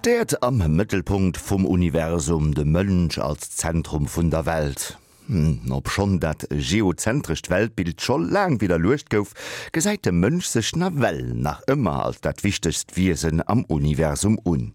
D'Äerd am Mëttelpunkt vum Universum, de Mënsch als Zentrum vun der Welt. Obschonn dat geozentrescht Weltbild scho laang widderluecht gouf, gesäit de Mënsch sech nawell nach ëmmer als dat wichtegst Wiesen am Universum un.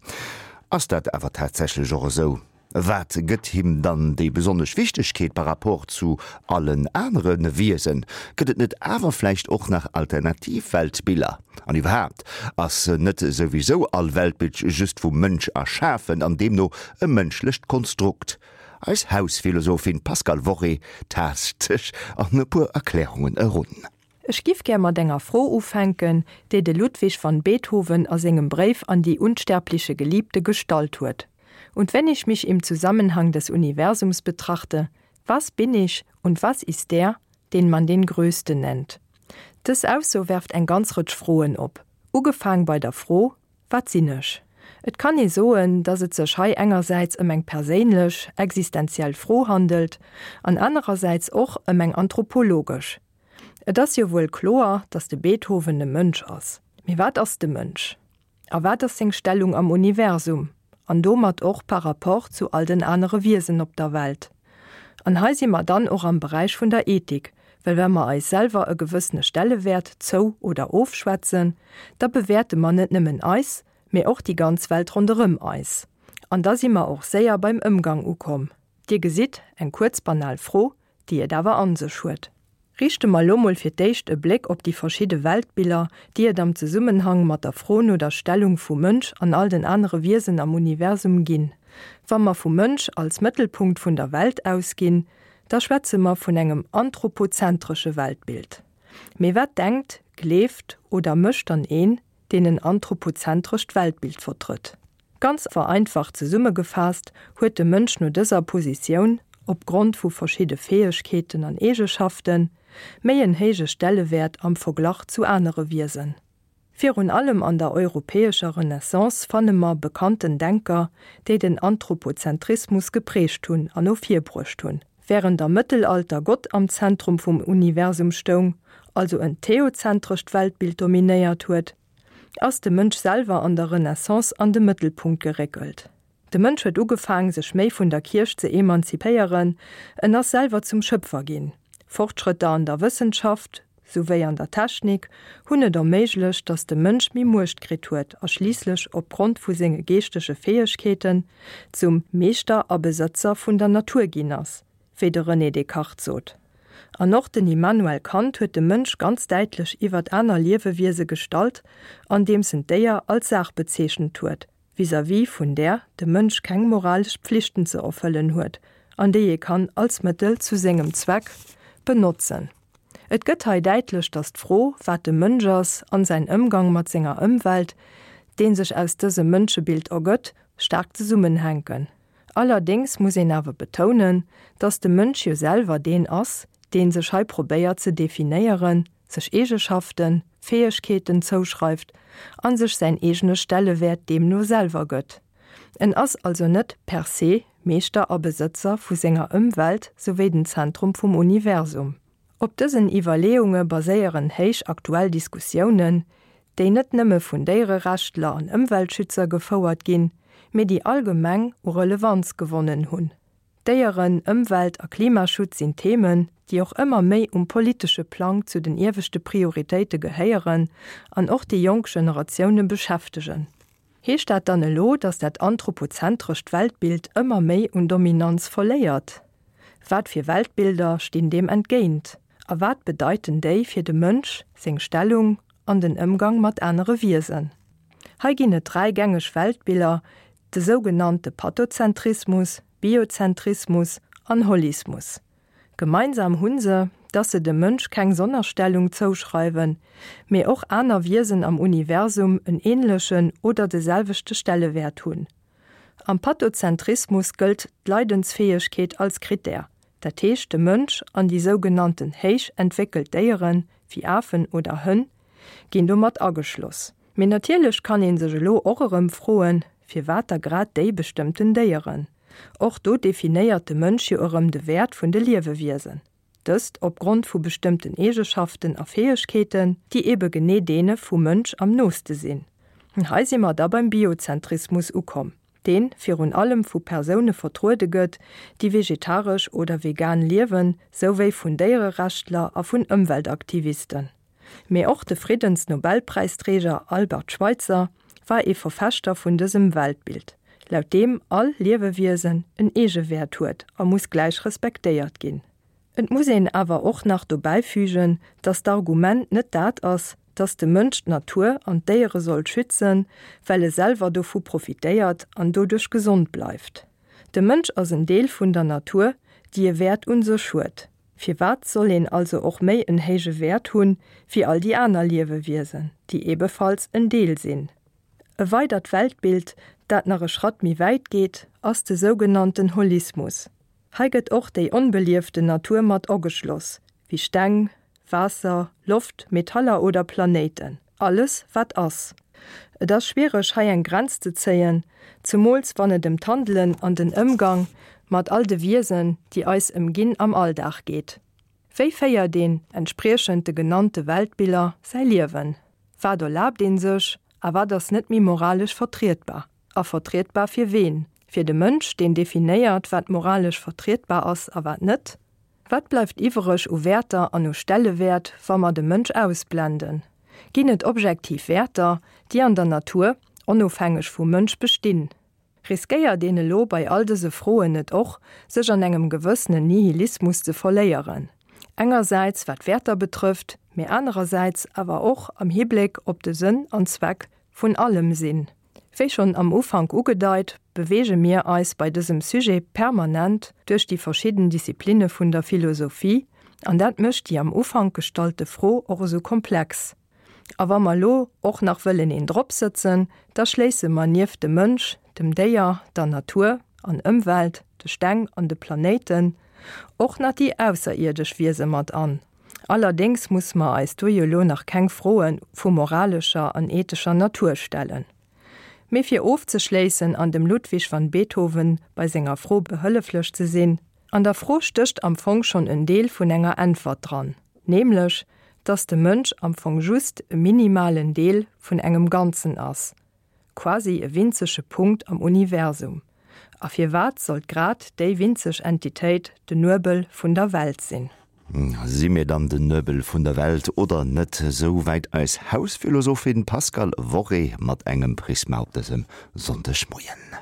Ass dat awer tatsächlech och esou? Wat gëtt him dann déi besonnesch Wichtegkeet par rapport zu allen anere Wiesen? Gëtt et net awer vläicht och nach alternativ Weltbiller? An iwwerhaapt, ass net souwisou all Weltbild just vum Mënsch erschafen an deemno e mënschlecht Konstrukt? Eis Hausphilosophin Pascale Worré taascht sech an e puer Erklärungen erun. Ech giff gär mat enger Fro ufänken, déi de Ludwig van Beethoven a sengem Bréif an die unsterbliche Geliebte gestallt huet, Und wenn ich mich im Zusammenhang des Universums betrachte, was bin ich und was ist der, den man den Größten nennt? Dës Ausso werft eng ganz Rëtsch Froen op, ugefaang bei der Fro, Wat sinn ech? Et kann ee soen, datt et sech hei engersäits ëm eng perséinlech, existenziell Fro handelt an anerersäits och ëm eng anthropologesch. Et ass jo wuel kloer, datt de Beethoven e Mënsch ass. Mee wat ass de Mënsch? A wat ass seng Stellung am Universum an domat och par rapport zu all den anere Wiesen op der Welt? An hei si mer dann och am Beräich vun der Ethik, well wa mer eis selwer e gewëssene Stellewäert zou oder ofschwätzen, da bewäerte mer net nëmmen eis, mee och déi ganz Welt ronderëm eis. An da si mer och séier beim Ëmgang ukomm. Dir gesitt, eng kuerz banal Fro, déi et awer an sech huet. Riichte mer elo mol fir d'éischt e Bléck op déi verschidde Weltbiller, déi et am Zesummenhang mat der Fro no der Stellung vum Mënsch an all den anere Wiesen am Universum ginn. Wa mer vum Mënsch als Mëttelpunkt vun der Welt ausginn, da schwätze mer vun engem anthropozentresche Weltbild. Mee wat denkt, gleeft oder mécht dann een, deen en anthropozentrescht Weltbild vertrëtt? Ganz vereinfacht zesummegefaasst huet de Mënsch no dëser Positioun, opgrond vu verschidde Fäegkeeten an Eegeschaften, méi en héije Stellewäert am Verglach zu anere Wiesen. Virun allem an der europäescher Renaissance fanne mer bekannten Denker, déi den Anthropozentrismus geprägt hunn an no vir bruecht hunn. Wärend am Mëttelalter Gott am Zentrum vum Universum stoung, also en theozentrescht Weltbild dominéiert huet, ass de Mënsch selwer an der Renaissance an de Mëttelpunkt geréckelt. De Mënsch huet ugefaang, sech méi vun der Kierch ze emanzipéieren, en ass selwer zum Schëpfer ginn. Fortschrëtter an der Wëssenschaft, souwéi an der Technik, hunn et erméiglecht, datt de Mënsch méi Muecht kritt huet a schliisslech opgrond vu senge geeschtege Fäegkeeten zum Meeschter a Besëtzer vun der Natur ginn ass, wéi de René Descartes sot. An och den Immanuel Kant huet de Mënsch ganz däitlech iwwert aner Liewewiese gestallt, andeems en d'Déier als Saach bezeechent huet, vis-à-vis vun där de Mënsch keng moralesch Pflichten ze erfëllen huet an déi ee kann als Mëttel zu sengem Zweck benotzen. Et gëtt hei däitlech, datt d'Fro, wat de Mënsch ass an säin Ëmgang mat senger Ëmwelt, dee sech aus dësem Mënschebild ergëtt, staark zesummenhänken. Allerdéngs muss een awer betounen, dass de Mënsch jo selwer deen ass, dee sech hei probéiert ze definéieren, sech Eegeschaften, Fäegkeeten zouschreift a sech säin eegene Stellewäert deemno selwer gëtt. En ass also net per se Meeschter a Besëtzer vu senger Ëmwelt souwéi den Zentrum vum Universum. Op dësen Iwwerleeunge baséieren héich aktuell Diskussiounen, déi net nëmme vun Déiererechtler an Ëmweltschützer gefouert ginn, mee déi allgemeng u Relevanz gewonnen hunn. Déieren-, Ëmwelt a Klimaschutz sinn Themen, déi och ëmmer méi um politesche Plang zu den ieweschte Prioritéite gehéieren an och déi jonk Generatioune beschäftegen. Heescht dat dann elo, datt dat anthropozentrescht Weltbild ëmmer méi un Dominanz verléiert? Wat fir Weltbilder stinn deem entgéint? A wat bedeiten déi fir de Mënsch, seng Stellung an den Ëmgang mat anere Wiesen? Hei ginn et 3 gängeg Weltbiller, de sougenannte Pathozentrismus, Biozentrismus an Holismus. Gemeinsam hunn se, dass se dem Mënsch keng Sonnerstellung zouschreiwen, mee och aner Wiesen am Universum en änlechen oder de selwechte Stellewäert hunn. Am Pathozentrismus gëllt d'Leidensfäegkeet als Krittär, dat heescht de Mënsch an déi sougenannten héich entwéckelt Déieren, wéi Afen oder Hënn, ginn do mat ageschloss. Mee natierlech kann ee sech elo och erëm froen, firwat da grad déi bestëmmten Déieren? Och do definéiert de Mënsch jo erëm de Wäert vun de Liewewiesen. Dëst opgrond vu bestëmmten Eegeschaften a Fäegkeeten, déi ebe genee deene vum Mënsch am nooste sinn. Hei si mer da beim Biozentrismus ukomm, deen virun allem vu Persoune vertruede gëtt, déi vegetaresch oder vegan liewen, souwéi vun Déiererechtler a vun Ëmweltaktivisten. Mee och de Friddensnobelpräisträger Albert Schweitzer war ee Verfechter vun dësem Weltbild, laut deem all Liewewiesen en Eegewäert huet a muss gläich respektéiert ginn. Et muss een awer och nach dobäifügen, dass d'Argument net dat ass, dass de Mënsch d'Natur an d'Déiere soll schützen, well e selwer dovu profitéiert an doduerch gesond bleift. De Mënsch ass en Deel vun der Natur, déi e Wäert un sech huet. Firwat soll een also och méi en héije Wäert hunn, wéi all déi aner Liewewiesen, déi ebefalls en Deel sinn? E weidert Weltbild, dat nach e Schratt méi wäit geet, ass de sougenannten Holismus. Hei gëtt och déi onbelieften Natur mat ageschloss, wéi Steng, Waasser, Loft, Metaller oder Planéiten, alles wat ass. Et ass schwiereg hei eng Grenz ze zéien, zemools wann et ëm d'Handelen an den Ëmgang mat all de Wiesen, déi eis ëmginn, am Alldag geet. Wéi féiert een, entspriechend de genannte Weltbiller, säi Liewen? Wat erlaabt een sech a wat ass net méi moralesch vertrietbar? A vertrietbar fir ween? Fir de Mënsch, deen definéiert, wat moralesch vertrietbar ass a wat net? Wat bleift iwwereg u Wäerter an u Stellewäert, wa mer de Mënsch ausblenden? Ginn et objektiv Wäerter, déi an der Natur, onofhängeg vum Mënsch, bestinn? Riskéiert een elo bei all dëse Froen net och, sech an engem gewëssenen Nihilismus ze verléieren? Engersäits wat d'Wäerter betrëfft, mee anerersäits awer och am Hibléck op de Sënn an Zweck vun allem Sinn. Wéi schonn am Ufank ugedeit, beweege mir eis bei dësem Sujet permanent duerch déi verschidden Disziplinne vun der Philosophie, an dat mécht déi am Ufank gestallte Fro och esou komplex. A wa mer elo och nach wëllen een dropsëtzen, da schléisse mer nieft dem Mënsch, dem Déier, der Natur an Ëmwelt, de Steng an de Planéiten och nach déi ausserierdesch Wiese mat an. Allerdéngs musse mer eis do jo elo nach keng Froe vu moralescher an ethescher Natur stellen. Mee fir ofzeschléissen an dem Ludwig van Beethoven bei senger Fro behëlleflech ze sinn, An der Fro stécht am Fong schonn en Deel vun enger Äntwert dran, nämlech dass de Mënsch am Fong just e minimalen Deel vun engem Ganzen ass, quasi e winzege Punkt am Universum. A firwat sollt grad déi winzeg Entitéit den Nuebel vun der Welt sinn? Si mir dann den Nuebel vun der Welt oder net? Esou wäit eis Hausphilosophin Pascale Worré mat engem Prisma op dësem Sonndegmoien.